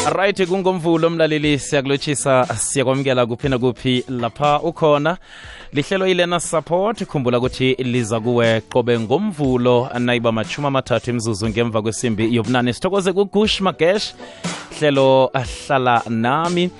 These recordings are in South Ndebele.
Right, kungomvulo mlaleli, siyakulotshisa, siyakwamukela kuphi na kuphi lapha ukhona. Lihlelo ilena support, khumbula ukuthi liza kuwe qobe ngomvulo nayiba machuma mathathu imzuzu ngemva kwesimbi yobunane. Sithokoze kuGush Magesh, hlelo ahlala nami.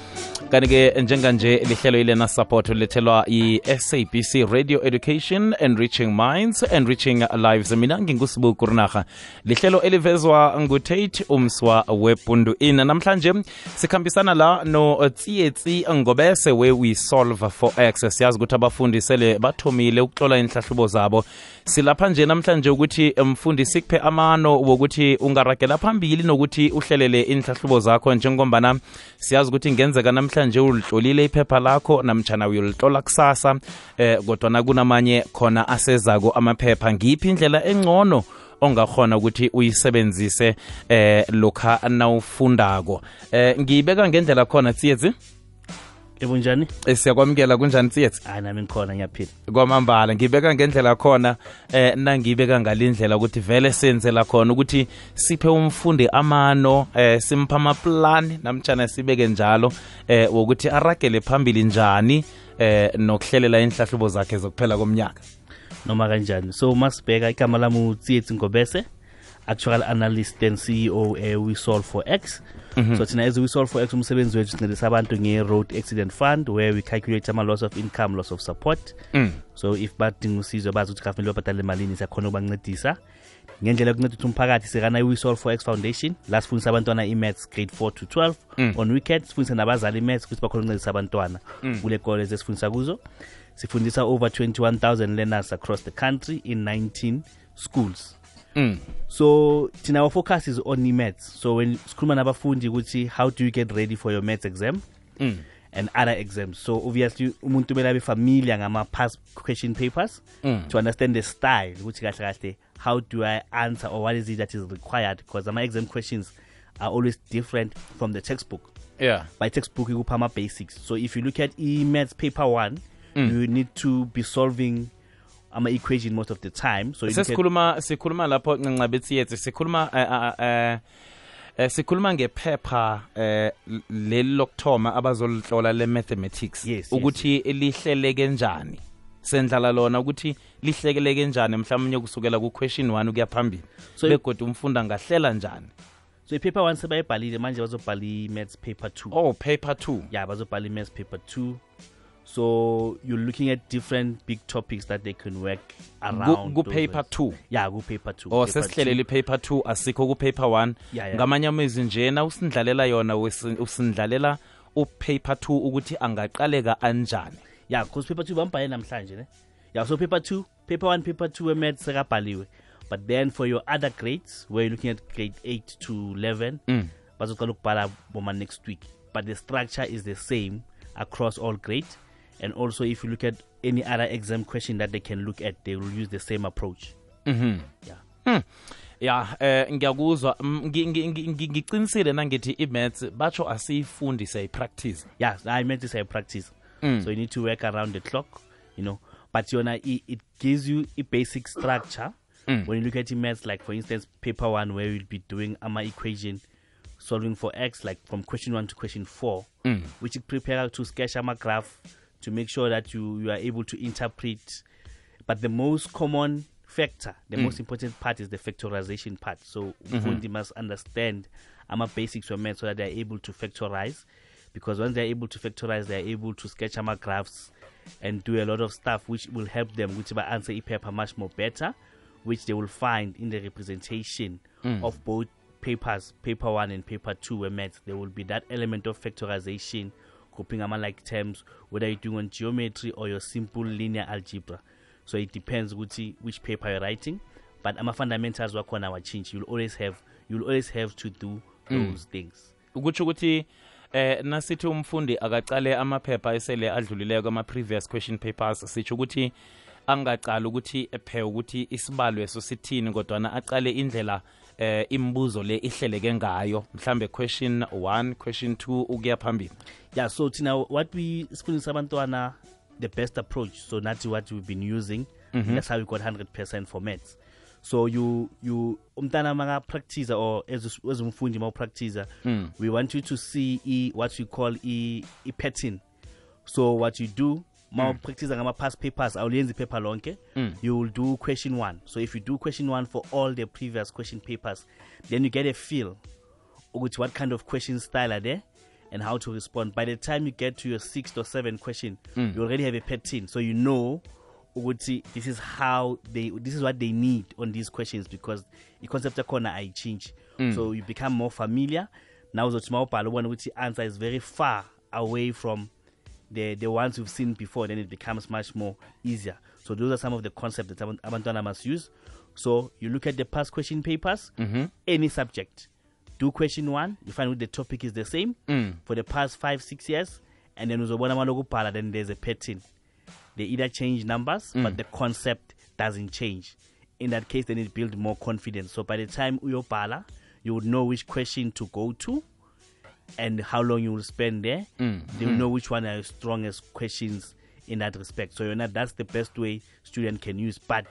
Kanike njenganje lihlelo ilena support lethelwa i-SABC Radio Education, Enriching Minds, Enriching Lives. Mina nginguSibu Kurnaga. Lihlelo elivezwa nguTate Umswa wepundu ina. Namhlanje sikhambisana la no Tsietsi Ngobese we solve for X. Siyazi ukuthi abafundi sele bathomile ukuhlola inhlahlubo zabo. Silapha nje namhlanje ukuthi mfundi sikuphe amano wokuthi ungaragela phambili nokuthi uhlelele inhlahlubo zakho, njengombana siyazi ukuthi ngenzeka namhlanje ulihlolile iphepha lakho namtjana uyolihlola kusasa, kodwa kunamanye khona asezako amaphepha. Ngiphi indlela engcono ongakhona ukuthi uyisebenzise lokha nawufundako? Ngiyibeka ngendlela khona Tsietsi. Ebunjani? Siyakwamukela, kunjani Tsietsi? Nami ngikhona, ngiyaphila. Kwamambala, ngibeka ngendlela khona, nangibeka ngalindlela ukuthi vele senze la khona ukuthi siphe umfundi amano, simpha amaplan namtjana sibeke njalo wokuthi aragele phambili njani nokuhlelela inhlahlubo zakhe zokuphela komnyaka. Noma kanjani. So masibheka igama lami Tsietsi Ngobese, actual analyst and CEO we solve for X. So thina as we solve for X, umsebenzi wethu sincedisa abantu nge-road accident fund, where we calculate loss of income, loss of support. So if badinga usizo bazi ukuthi kufanele babhadale malini, siyakhona ukubancedisa ngendlela yokunceda ukuthi umphakathi sekana we solve for X foundation. La sifundisa abantwana i-maths grade 4 to 12 on weekends, sifundisa nabazali i-maths ukuthi bakhona ukuncedisa abantwana kule college esifundisa kuzo. Sifundisa over 21,000 learners across the country in 19 schools. So our focus is on maths. So when sikhuluma nabafundi ukuthi how do you get ready for your maths exam and other exams, so obviously umuntu kumele abe familiar ngama past question papers to understand the style ukuthi kahle kahle how do I answer, or what is it that is required, because my exam questions are always different from the textbook. By textbook you have basics. So if you look at maths paper 1, you need to be solving equation most of the time. So sikhuluma lapho ncabethi sikhuluma ngephepha lelokthoma abazolihlola le mathematics, ukuthi lihleleke njani, sendlala lona ukuthi lihleleke njani mhlawumnye kusukela ku question 1 ukuya phambili, begodwa umfunda ngahlela njani. So paper 1 sebayibhalile manje bazobhala maths paper 2. Oh, paper 2. Yeah, bazobhala maths paper 2. So you're looking at different big topics that they can work around. Go paper 2. Yeah, go paper 2. Oh, sesihlelele paper 2 asikho ku paper 1. Ngamanye amazwi njena usindlalela yona usindlalela paper 2 ukuthi angaqaleka anjani. Yeah, because paper 2 bambhale namhlanje ne. Yeah, so paper 2, paper 1, paper 2 maths sekabhaliwe. But then for your other grades, where you're looking at grade 8 to 11, bazoqala ukubhala boma next week. But the structure is the same across all grades. And also, if you look at any other exam question that they can look at, they will use the same approach. Ngiyakuzwa, ngiqinisile nangithi i-maths batsho asiyifundise i-practice. Yeah, I meant to say practice. So you need to work around the clock, but it gives you a basic structure. When you look at maths, like for instance, paper 1, where you'll be doing equation solving for X, like from question 1 to question 4, which you prepare to sketch a graph to make sure that you are able to interpret. But the most common factor, the most important part is the factorization part. So they must understand basics of math so that they are able to factorize. Because once they are able to factorize, they are able to sketch graphs and do a lot of stuff which will help them, which will answer a paper much more better, which they will find in the representation of both papers, paper 1 and paper 2 where maths. There will be that element of factorization, coping like terms, whether you're doing on geometry or your simple linear algebra. So it depends which paper you're writing. But fundamentals work on our change. You'll always have to do those things. Ukuthi nasithi umfundi akaqale amaphepha esele adlulileko ama previous question papers, sitsho ukuthi angaqala ukuthi ephe ukuthi isibalo eso sithini, kodwa aqale indlela imbuzo le ihleleke ngayo, mhlambe question 1, question 2 ukuya phambili. Yeah, so what we sifundisa abantwana the best approach, so that's what we've been using. That's how we got 100% for maths. So you umntana maka practice or as umfundi ma practice, we want you to see what we call a pattern. So what you do, practice ngama past papers, awuyenzi paper lonke, you will do question 1. So if you do question 1 for all the previous question papers, then you get a feel with what kind of question style are there and how to respond. By the time you get to your 6th or 7th question, you already have a pattern, so you know this is what they need on these questions, because the concept of corner I change. So you become more familiar. Now the small one which the answer is very far away from the ones we've seen before, then it becomes much more easier. So those are some of the concepts that Abantwana must use. So you look at the past question papers, any subject. Do question 1, you find out the topic is the same for the past 5-6 years, and then then there's a pattern. They either change numbers, but the concept doesn't change. In that case, then it builds more confidence. So by the time uyopala, you would know which question to go to and how long you will spend there. They will know which one are the strongest questions in that respect. So that's the best way student can use. But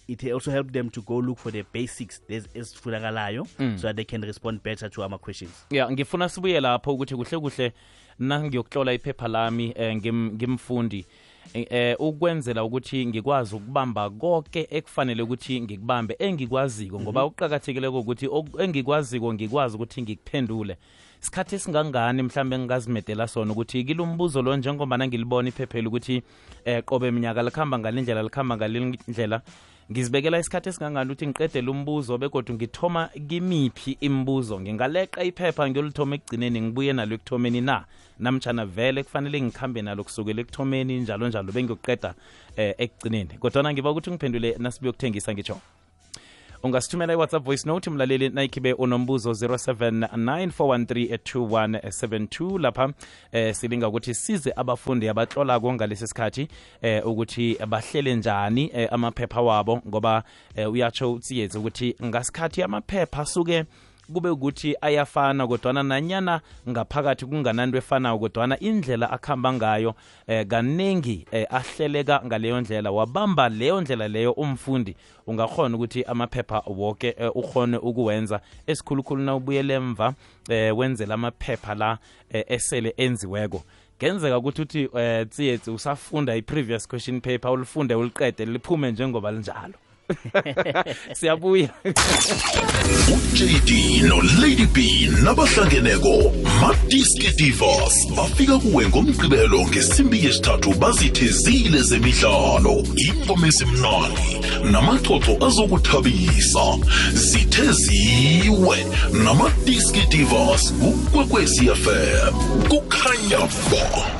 it also helps them to go look for the basics so that they can respond better to our questions. Yeah, ngifuna sibuye lapho ukuthi kuhle nangiyokutlola iphepha lami ngimfundi ukwenzela ukuthi ngikwazi ukubamba konke ekufanele ukuthi ngikubambe engikwaziko, ngoba uqhakathekile ukuthi engikwaziko ngikwazi ukuthi ngikuphendule. Isikhathi singangani mhlambe ngingazimedela sona ukuthi kilumbuzo lo njengoba ngilibona iphephela ukuthi qobe eminyaka likhamba ngalendlela ngizibekela isikhathi esingangani ukuthi ngiqedele umbuzo begodwa ngithoma kimiphi imibuzo, ngingaleqa iphepha ngiyolithoma ekugcineni ngibuye nalo ekuthomeni namtjana vele kufanele ngikhambe nalo kusukela ekuthomeni njalo bengiyoqeda ekugcineni. Kodwa ngiba ukuthi ngiphendule nasibuyokuthengisa ngitsho. Ungasithumela iWhatsApp voice note mlaleli nayikhibe unombuzo 0794132172 lapha silinga ukuthi size abafundi abatlola ngalesi sikhathi ukuthi bahlele njani amaphepha wabo, ngoba uyatsho utsiyetse ukuthi ngasikhathi amaphepha asuke kube ukuthi ayafana kodwana nanyana ngaphakathi kungananto efanayo, kodwana indlela akhamba ngayo kanengi ahleleka ngaleyo ndlela, wabamba leyo ndlela leyo umfundi ungakhona ukuthi amaphepha wonke ukhone ukuwenza. Esikhulukhulu na ubuyele emva wenzela amaphepha la esele enziweko. Kenzeka ukuthi tsiyetse usafunda i-previous question paper ulifunde uliqede liphume njengoba linjalo. Siyabuya. uJD noLady B nabahlangeneko Madiski Divas bafika kuwe ngomgqibelo ngesimbi yesithathu bazithezile zemidlalo, ingoma esimnandi namaxoxo azokuthabisa. Zitheziwe naMadiski Divas kuKwekwezi FM kukhanya ba.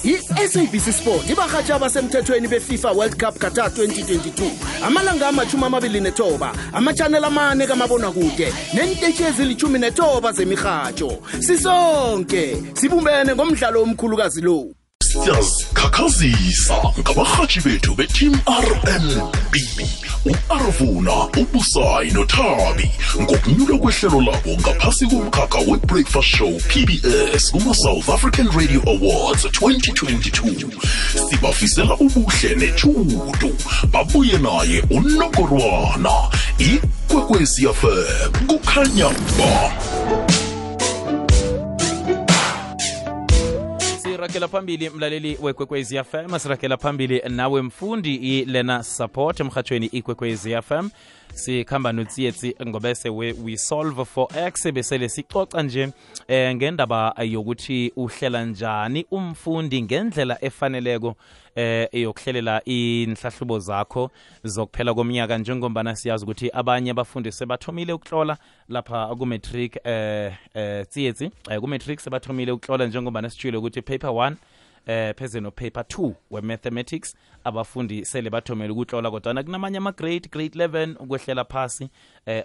I-SABC Sport ibahatsha abasemthethweni beFIFA World Cup Qatar 2022 amalanga ama-29 amachannel amane kamabonakude nentetshi ezili-19 zemihatsho. Sisonke sibumbene ngomdlalo omkhulukazi lo. Siyazikhakhazisa ngabahatshi bethu beTeam RMB, u-Arvuna, uBusayi noThabi ngokunyuka kwehlelo labo ngaphasi komkhakha we-Breakfast Show PBS kuma-South African Radio Awards 2022. Sibafisela ubuhle nechudu. Babuye naye uNongorwana. iKwekwezi FM kukhanya ba. Sirakela phambili mlaleli weKwekwezi FM, sirakela phambili nawe mfundi ilena support emhathweni iKwekwezi FM. Sikhamba notsiyetsi ngobese we solve for x besele sicoca nje ngendaba yokuthi uhlela njani umfundi ngendlela efaneleko yokuhlelela inhlahlubo zakho zokuphela komnyaka, njengombana siyazi ukuthi abanye abafundi sebathomile ukutlola lapha ku matric tsiyetsi ku matric sebathomile ukutlola, njengombana sitshilo ukuthi paper 1 pheze no paper 2 we mathematics abafundi sele bathomela ukutlola, kodwa kunamanye ama grade 11 ukwehlela phasi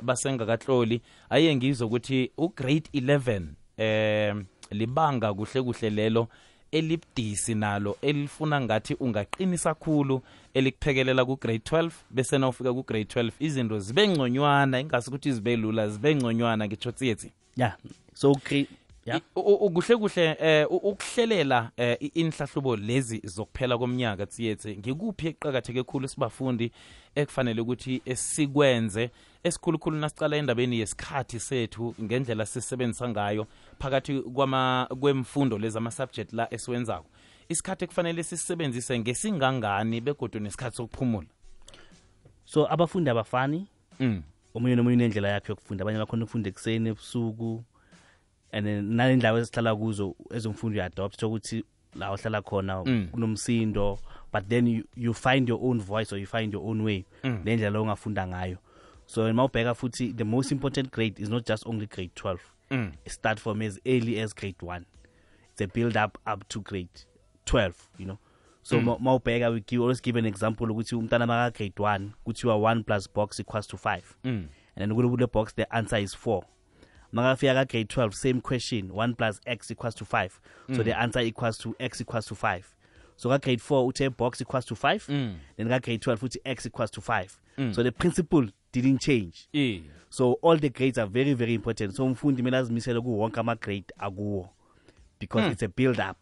basengakatloli. Aye ngizwe ukuthi u grade 11 libanga kuhle lelo elibdisi nalo elifuna ngathi ungaqinisa kakhulu elikuphekelela ku grade 12, bese na ufika ku grade 12 izinto zibe ngconywana, ingasi ukuthi zibe lula, zibe ngconywana ngitsho tsiyetsi. Yeah, so Yeah. Ukuhle kuhle ukuhlelela inhlahlubo lezi zokuphela komnyaka tsiyethe ngikuphi eqhakatheke kakhulu sibafundi ekufanele ukuthi sikwenze esikhulukhulu nasicala endabeni yesikhathi sethu ngendlela sisebenzisa ngayo phakathi kwemfundo lezi ama subject la esiwenzako isikhathi ekufanele sisebenzise ngesingangani begodwa nesikhathi sokuphumula. So abafundi abafani omunye nomunye unendlela yakhe yokufunda, abanye bakhona ukufunda ekseni ebusuku and nalendawo esihlala kuzo ezomfundo uadopt ukuthi la ohlala khona kunomsindo, but then you find your own voice or you find your own way lendlela ongafunda ngayo. So mawubheka futhi the most important grade is not just only grade 12. It start from as early as grade 1. It's a build up to grade 12, you know. So mawubheka we always give an example ukuthi umntana maka grade 1 kuthiwa 1 plus box equals to 5. And then kule box the answer is 4. Magafika ka grade 12 same question 1 plus x equals to 5. So the answer equals to x equals to 5. So ka grade 4 uthe box equals to 5. Then ka grade 12 uthi x equals to 5. So the principle didn't change. So all the grades are very very important. So umfundi mina azimisela ku wonke ama grade akuwo because it's a build up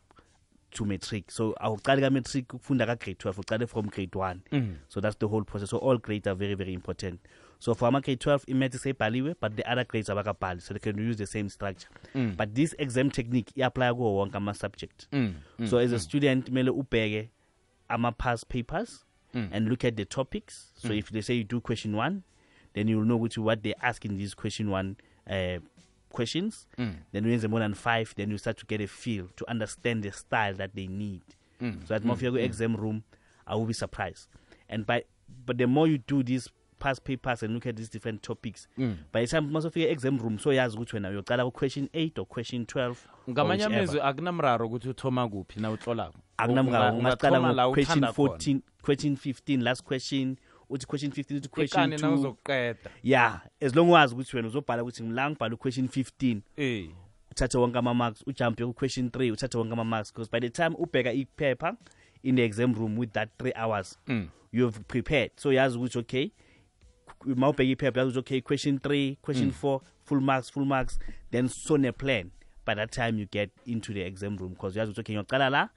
to matric. So awuqala ka matric ukufunda ka grade 12 uqale from grade 1. So that's the whole process. So all grades are very very important. So for grade 12 imathi sebhaliwe but the other grades abakabhali so they can use the same structure. But this exam technique apply kuwo wonke ama subject. So as a student mele ubheke ama past papers and look at the topics. So if they say you do question 1, then you will know what they ask in these question 1 questions. Then when you more than 5, then you start to get a feel to understand the style that they need. So at more if you go exam room, I will be surprised. And but the more you do these past papers and look at these different topics, by the time most of your exam room, so yazi ukuthi wena uyocala question 8 or question 12. Ngamanye amezwe akunamraro ukuthi uthoma kuphi na utlolako. Akunamraro ungaqala question 14, question 15, last question. Uthi question 15 uthi question 2 uzoqeda. Yeah, as long as ukuthi wena uzobhala ukuthi ngila ngibhala question 15 uthatha wonke ama marks ujump ku question 3 uthatha wonke ama marks because by the time ubheka ipaper in the exam room with that 3 hours you've prepared. So yazi ukuthi okay mawubheka ipaper yazi ukuthi okay question 3 question 4 full marks then so ne plan by that time you get into the exam room because yazi ukuthi okay ngiyaqala la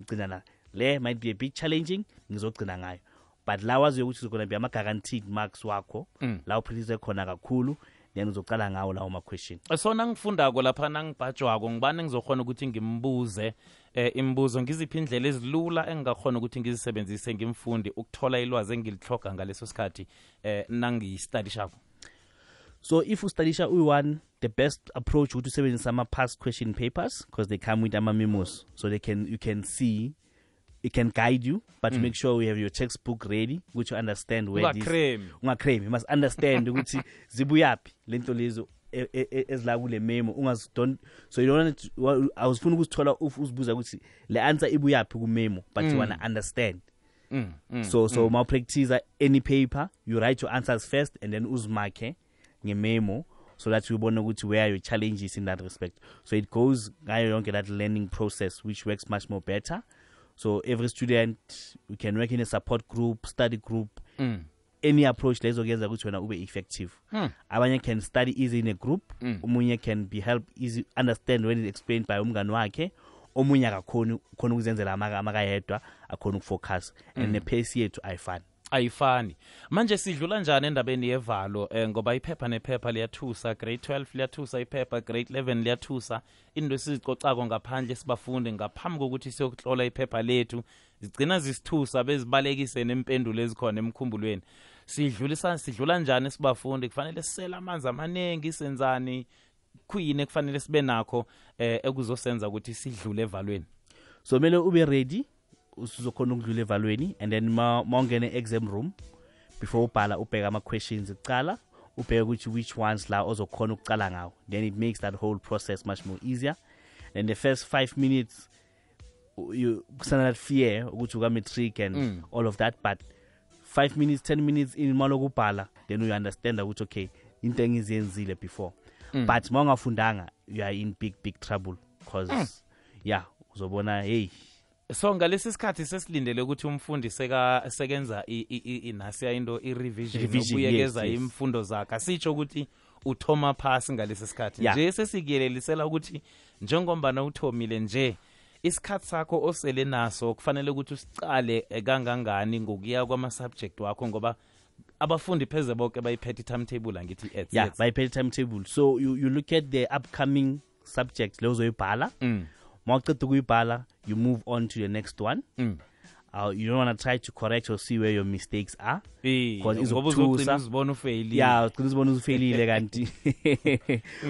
ngicina la le might be a bit challenging ngizogcina ngayo. But la wazi ukuthi uzogona be ama guaranteed marks wakho la uphilize khona kakhulu then uzocala ngawo lawo ma question. So nangifundako lapha nangibhajwako ngibani ngizokhona ukuthi ngimbuze imibuzo ngiziphi indlela ezilula engakhona ukuthi ngizisebenzise ngimfundi ukuthola ilwazi engilihloga ngaleso sikhathi nangiyistudishako. So if you study U1, the best approach would to sebenzisa ama past question papers because they come with ama memos so you can see. It can guide you, but make sure you have your textbook ready, which you understand where this. Ungacreme. You must understand ukuthi zibuyaphi lento lezo ezila kule memo. So you don't. I was funa ukuthola uzibuza ukuthi le answer ibuyaphi ku memo, but you wanna understand. So ma practice any paper, you write your answers first and then uzmarke nge memo so that you bona ukuthi where your challenges in that respect. So it goes ngayo yonke that learning process which works much more better. So every student, we can work in a support group, study group, any approach lezo kuyenza ukuthi wena ube effective. Abanye can study easy in a group, omunye can be helped easy understand when it's explained by umngani wakhe, omunye akakhona ukuzenzela amakayedwa akhona ukufocus and the pace yethu ayifani. Manje sidlula njani endabeni yevalo ngoba iphepha nephepha liyathusa, grade 12 liyathusa iphepha, grade 11 liyathusa. Into esizicocako ngaphandle sibafunde ngaphambi kokuthi siyokutlola iphepha lethu zigcina zisithusa bezibalekise nempendulo ezikhona emkhumbulweni. Sidlula njani sibafunde kufanele sisela amanzi amaningi senzani kuyini kufanele sibe nakho ekuzosenza ukuthi sidlule evalweni. So mele ube ready usizokhona ukudlula evalweni and then mawungene exam room before ubhala ubheka ama questions ecala ubheka ukuthi which ones la ozokhona ukucala ngawo, then it makes that whole process much more easier. And the first 5 minutes you kusana that fear ukuthi uka matric and all of that, but 5 minutes 10 minutes in malokubhala then you understand ukuthi okay into engizenzile before. But mawungafundanga you are in big trouble because uzobona hey. So ngalesi sikhathi sesilindele ukuthi umfundi sekenza inasiya into i-revision ukuyekeza imfundo zakhe. Sitsho ukuthi uthoma phasi ngalesi sikhathi Yeah. nje sesikuyelelisela ukuthi njengombana uthomile nje isikhathi sakho osele naso kufanele ukuthi usicale kangangani ngokuya kwama-subject wakho ngoba abafundi pheze bonke bayiphethe i-timetable angithi Yeah, by pay timetable. So you look at the upcoming subjects lezo zoyibhala. Mawuqeda ukuyibhala, you move on to the next one. You don't want to try to correct or see where your mistakes are. Because uzobona ufeyili. Yeah, uzobona ufeyilile kanti.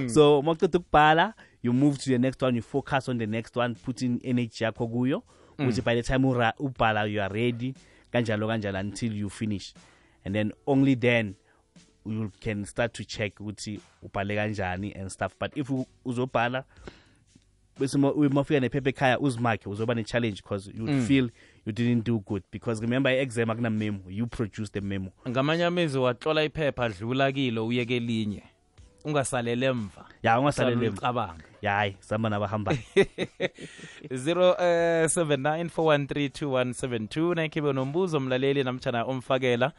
So mawuqeda ukubhala, you move to the next one, you focus on the next one, put in energy yakho kuyo, which by the time ubhala you are ready, kanjalo until you finish. And then only then you can start to check ukuthi ubhale kanjani and stuff. But if uzobhala bese mafika nephepha ekhaya uzimakhe uzoba ne-challenge because you feel you didn't do good, because remember i-exam akuna memo, you produce the memo. Ngamanye amezwi watlola iphepha adlula kilo uyeke elinye ungasalele emva. Ya ungasalele emva. Cabanga. Ya hayi samba nabahamba. 0794132172 nakibe nombuzo mlaleli namtjana omfakela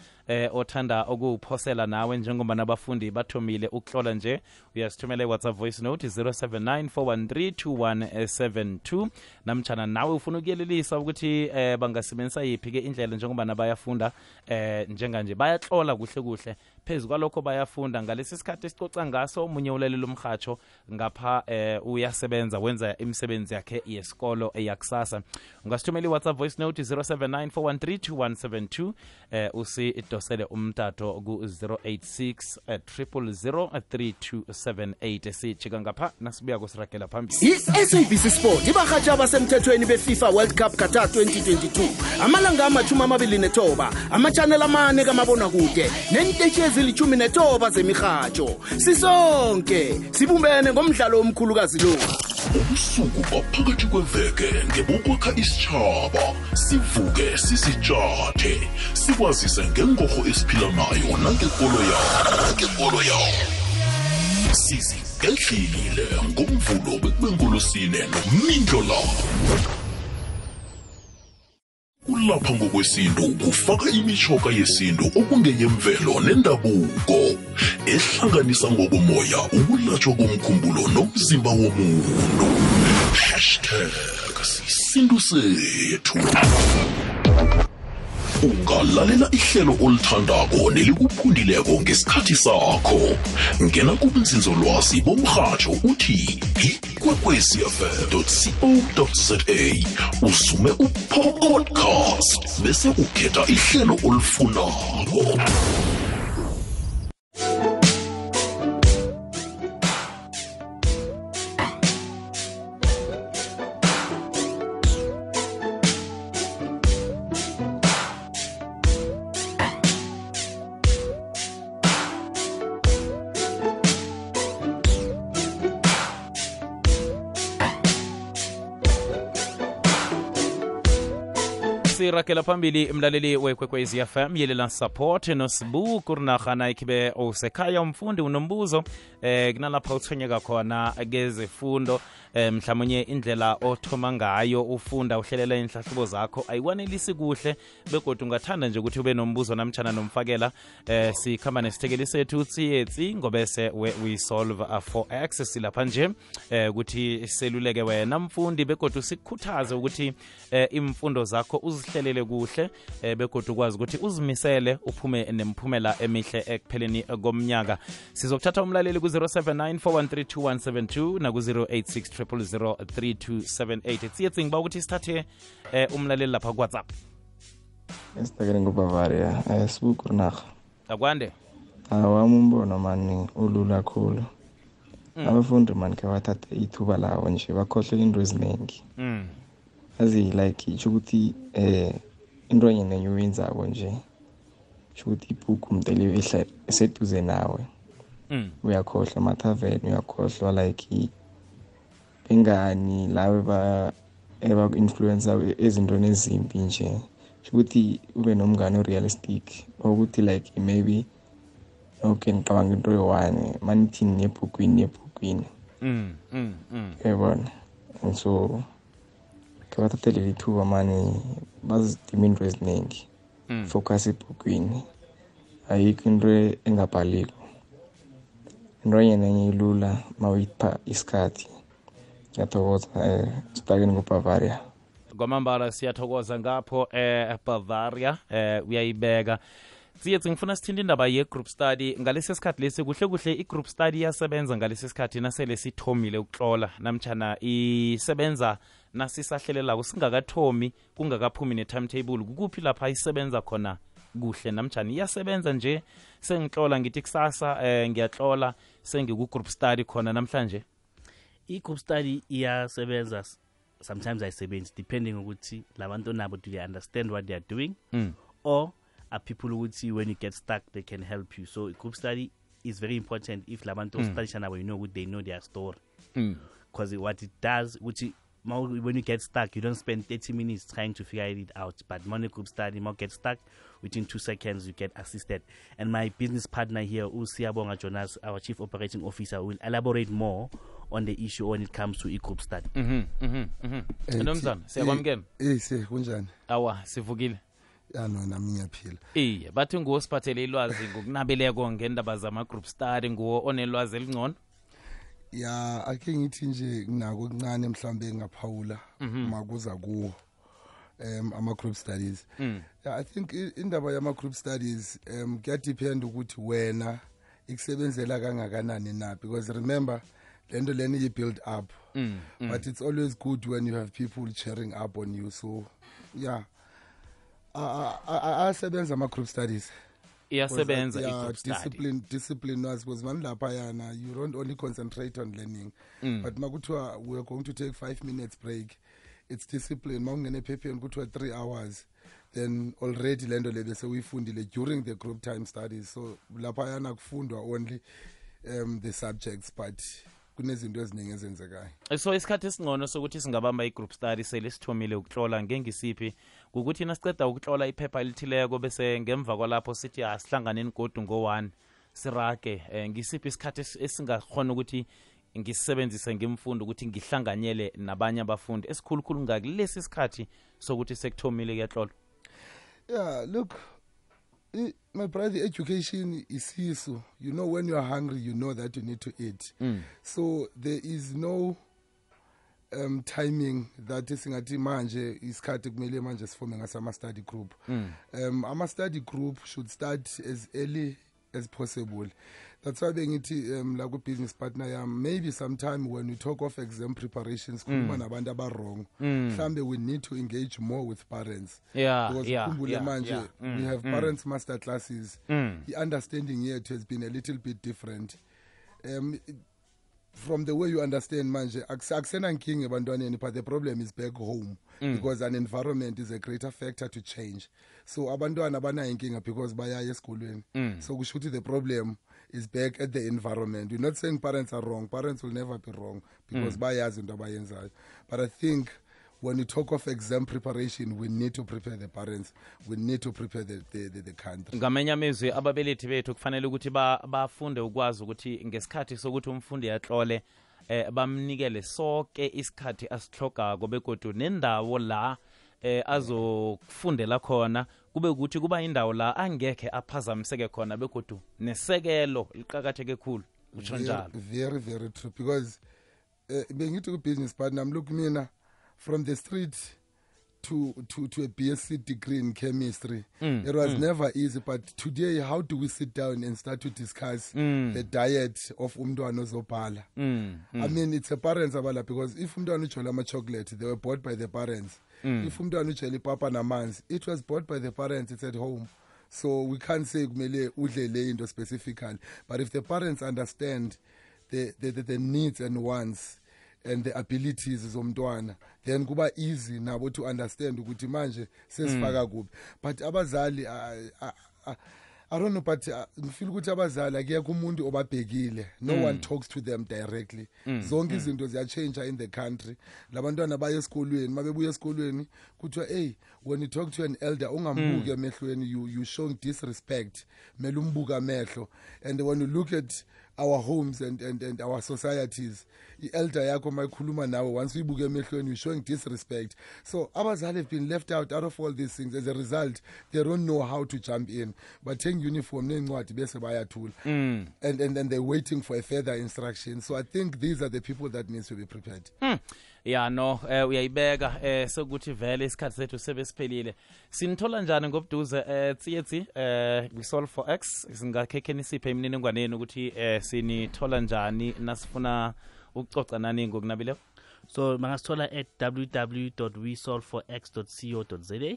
othanda ukuphosela nawe njengoba nabafundi bathomile ukuhlola nje uyasithumela iWhatsApp voice note 0794132172 namtjana nawe ufuna ukuyelelisa ukuthi bangasebenzisa yiphi ke indlela njengoba nabayafunda njenganje bayahlola kuhle phezulu kwalokho bayafunda ngalesi sikhathi esicoca ngaso umunye ulalela umhatsho ngapha uyasebenza wenza imisebenzi yakhe yesikolo yakusasa. Ungasithumela iWhatsApp voice note 0794132172 usidosele umtato ku 086 sijika ngapha nasibuya kusiragela phambili. I-SABC Sport ibahatsha abasemthethweni beFIFA World Cup Qatar 2022 amalanga ama-29 ama-channel amane kamabonakude nentetshi ezili-19 zemihatsho sisonke sibumbene ngomdlalo omkhulukazi lo. Ubusuku baphakathi kweveke ngebokwakha isitshaba sivuke sisitshathe sikwazise ngengorho esiphila nayo nangekolo yawo sizigedlile ngomvulo bekubengolusine nomindlo lapho kulapha ngokwesintu kufaka imitjhoga yesintu okungeyemvelo nendabuko ehlanganisa ngokomoya ukulatshwa komkhumbulo nomzimba womuntu #sisintu sethu. Ungalalela ihlelo olithandako nelikuphundileko ngesikhathi sakho. Ngena kubunzinzolwazi bomhatsho uthi ikwekwecfm.co.za usume upodcast bese ukhetha ihlelo olifunako. sirakela phambili mlaleli wekwekwezi FM yelela support nosibu kurinakhana ikibe usekhaya umfundi unombuzo kunalapha uthonyeka khona kezefundo mhlawumnye indlela othoma ngayo ufunda uhlelela inhlahlubo zakho ayikwanelisi kuhle begodwa ungathanda nje ukuthi ube nombuzo namtjana nomfakela sikhamba nesithekeli sethu tsiyetsi ngobese we solve for access lapha nje ukuthi seluleke wena mfundi begodwa sikukhuthaze ukuthi imfundo zakho uzihlelele kuhle begodwa ukwazi ukuthi uzimisele uphume nemphumela emihle ekupheleni komnyaka. Sizokuthatha umlaleli ku 0794132172 na ku 0860003278 tsiyetsi ngiba ukuthi sithathe umlaleli lapha ku WhatsApp. Esitakele ngubavaria sibuku naga akwande awami umbono mani ulula kakhulu. Abafundi mani ke bathatha ithuba lawo nje bakhohle into eziningi azi like ukuthi into enye nenye uyenzako nje ukuthi ibuku umnteli eseduze nawe uyakhohlwa amathaveni uyakhohlwa like bengani lawe eba-influencer ezintweni ezimbi nje ukuthi ube nomngane realistic ukuthi like maybe okay ngicabanga into yowane manithini nebhukwini yabona so kabathathele ithuba mani bazidima into eziningi focus ebhukwini ayikho into engabhaliko into enye ilula mawuyipha isikhathi. Ngiyathokoza sibhakeni kuBavaria. Kwamambala siyathokoza ngapho Bavaria uyayibeka. Siyethu ngifuna sithinde indaba ye-group study ngalesi sikhathi lesi kuhle i-group study yasebenza ngalesi sikhathi nasele sithomile ukutlola namtjana isebenza nasisahlelelako singakathomi kungakaphumi ne-timetable kukuphi lapha isebenza khona kuhle namtjana iyasebenza nje sengitlola ngithi kusasa ngiyatlola sengiku-group study khona namhlanje. I-group study iyasebenza, sometimes ayisebenzi depending ukuthi labantu nabo do they understand what they are doing or are people ukuthi when you get stuck they can help you. So group study is very important if labantu study nabo, you know, they know their story, because what it does which when you get stuck you don't spend 30 minutes trying to figure it out, but when group study more get stuck within 2 seconds you get assisted. And my business partner here, Siyabonga Jonas, our chief operating officer, will elaborate more on the issue when it comes to e-group study. Nomzana siyakwamukela. Kunjani? Awa sivukile. No, nami ngiyaphila. Bathi nguwo siphathele ilwazi ngokunabeleko ngendaba zama-group study, nguwo onelwazi elingcono. Ake ngithi nje nginako okuncane mhlambe ngaphawula makuza kuwo ama-group studies. I think indaba yama-group studies kuyadepend ukuthi wena ikusebenzela kangakanani na, because remember lento lena you-build up, but it's always good when you have people cheering up on you. So asebenza ama-group studies. Iyasebenza i-group study. Discipline was mani lapha yana, you don't only concentrate on learning, but makuthiwa we're going to take 5 minutes break, it's discipline. Mawungene ephepheni kuthiwa 3 hours, then already lento le bese uyifundile during the group time studies. So lapha yana kufundwa only the subjects, but kunezinto eziningi ezenzekayo. So isikhathi esingcono sokuthi singabamba i-group study sele sithomile ukutlola ngengisiphi ukuthi nasiceda ukutlola iphepha elithileko bese ngemva kwalapho sithi asihlanganeni godu ngo-1 sirage ngisiphi isikhathi esingakhona ukuthi ngisebenzise ngimfundo ukuthi ngihlanganyele nabanye abafundi esikhulukhulu ngakulesi isikhathi sokuthi sekuthomile kuyatlola? Look, my brother, education is sisu. You know, when you are hungry, you know that you need to eat. So there is no timing that singathi manje isikhathi kumele manje siforme ngasama study group. Ama study group should start as early as possible. That's why bengithi like a business partner maybe sometime when we talk of exam preparations nabantu wrong, we need to engage more with parents. Because manje we have parents master classes. The understanding yet has been a little bit different. From the way you understand manje akusena nkinga ebantwaneni, but the problem is back home, because an environment is a greater factor to change. So abantwana banayo inkinga because bayaya esikolweni. So kusho ukuthi the problem is back at the environment. We're not saying parents are wrong. Parents will never be wrong because bayazi into abayenzayo. But I think when you talk of exam preparation, we need to prepare the parents, we need to prepare the country. Ngamenya amezwi ababelethi bethu kufanele ukuthi bafunde ukwazi ukuthi ngesikhathi sokuthi umfundi atlole bamnikele sonke isikhathi asihlogako begodu nendawo la azokufundela khona kube ukuthi kuba indawo la angekhe aphazamiseke khona begodu nesekelo liqhakatheke kakhulu. Utsho njalo. Very, very true, because bengithi ku-business partner, look mina, from the street to a BSc degree in chemistry, it was never easy. But today, how do we sit down and start to discuss the diet of umntwana ozobhala? I mean, it's a parents abala, because if umntwana ujola ama-chocolate, they were bought by the parents. If umntwana ujola ipapa namanzi, it was bought by the parents, it's at home. So we can't say kumele udlele into specifically. But if the parents understand the needs and wants and the abilities zomntwana, then kuba easy nabo to understand ukuthi manje sesifaka kuphi. But abazali I don't know, but ngifeel ukuthi abazali akekho umuntu obabhekile. No one talks to them directly. Zonke izinto ziyachange in the country. Labantwana baya esikolweni, mabebuya esikolweni kuthiwa hey, when you talk to an elder ungambuki emehlweni, you showing disrespect. Mele umbuka amehlo. And when you look at our homes and our societies. I-elder yakho mayikhuluma nawe once uyibuke emehlweni you're showing disrespect. So abazali have been left out of all these things. As a result, they don't know how to jump in. But take uniform nencwadi bese bayathula. And they're waiting for a further instruction. So I think these are the people that needs to be prepared. Ya no uyayibeka sokuthi vele isikhathi sethu sebesiphelile. Sinithola njani ngobuduze tsietsi Resolve for X singakhekhe nisiphe imininingwane ukuthi sinithola njani nasifuna ukucoca nani ngokunabile? So mangasithola at www.wesolve4x.co.za.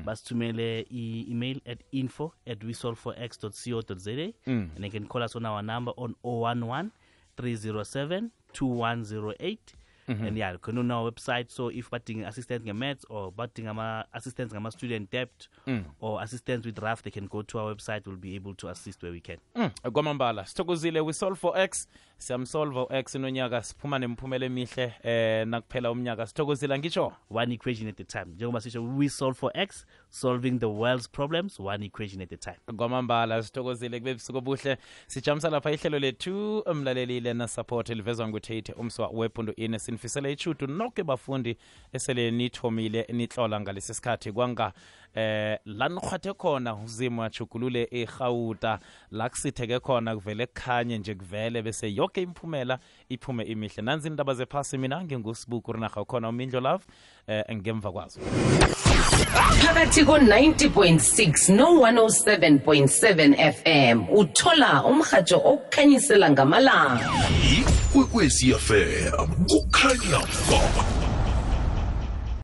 Basithumele email at info@wesolve4x.co.za and they can call us on our number on 011 307 2108. And yeah, you can on our website. So if batting assistance maths or batting assistance student debt or assistance with draft, they can go to our website. We'll be able to assist where we can. Kwamambala sithokozile we solve for X siyamsolve X nonyaka siphuma nemphumela emihle nakuphela umnyaka sithokozile ngitsho one equation at a time. Njengoba sisho we solve for X, solving the world's problems one equation at a time. Kwamambala sithokozile kube busuku obuhle sijamisa lapha ihlelo lethu umlalelile na support livezwa nguThete umswa wepundo ine sinifisela ichutu nonke bafundi esele nithomile nitlola ngalesi sikhathi kwanga la nikhwathe khona uzimo achugulule eGauta la kusitheke khona kuvele kukhanye nje kuvele bese yonke imphumela iphume imihle nanzi indaba zephasi mina ngingusibuku rinaga khona umindlo love ngemva kwazo phakathi ko-90.6 no-107.7 FM uthola umhajo okukhanyisela ngamalanga ikwekwezi FM kukhanya ba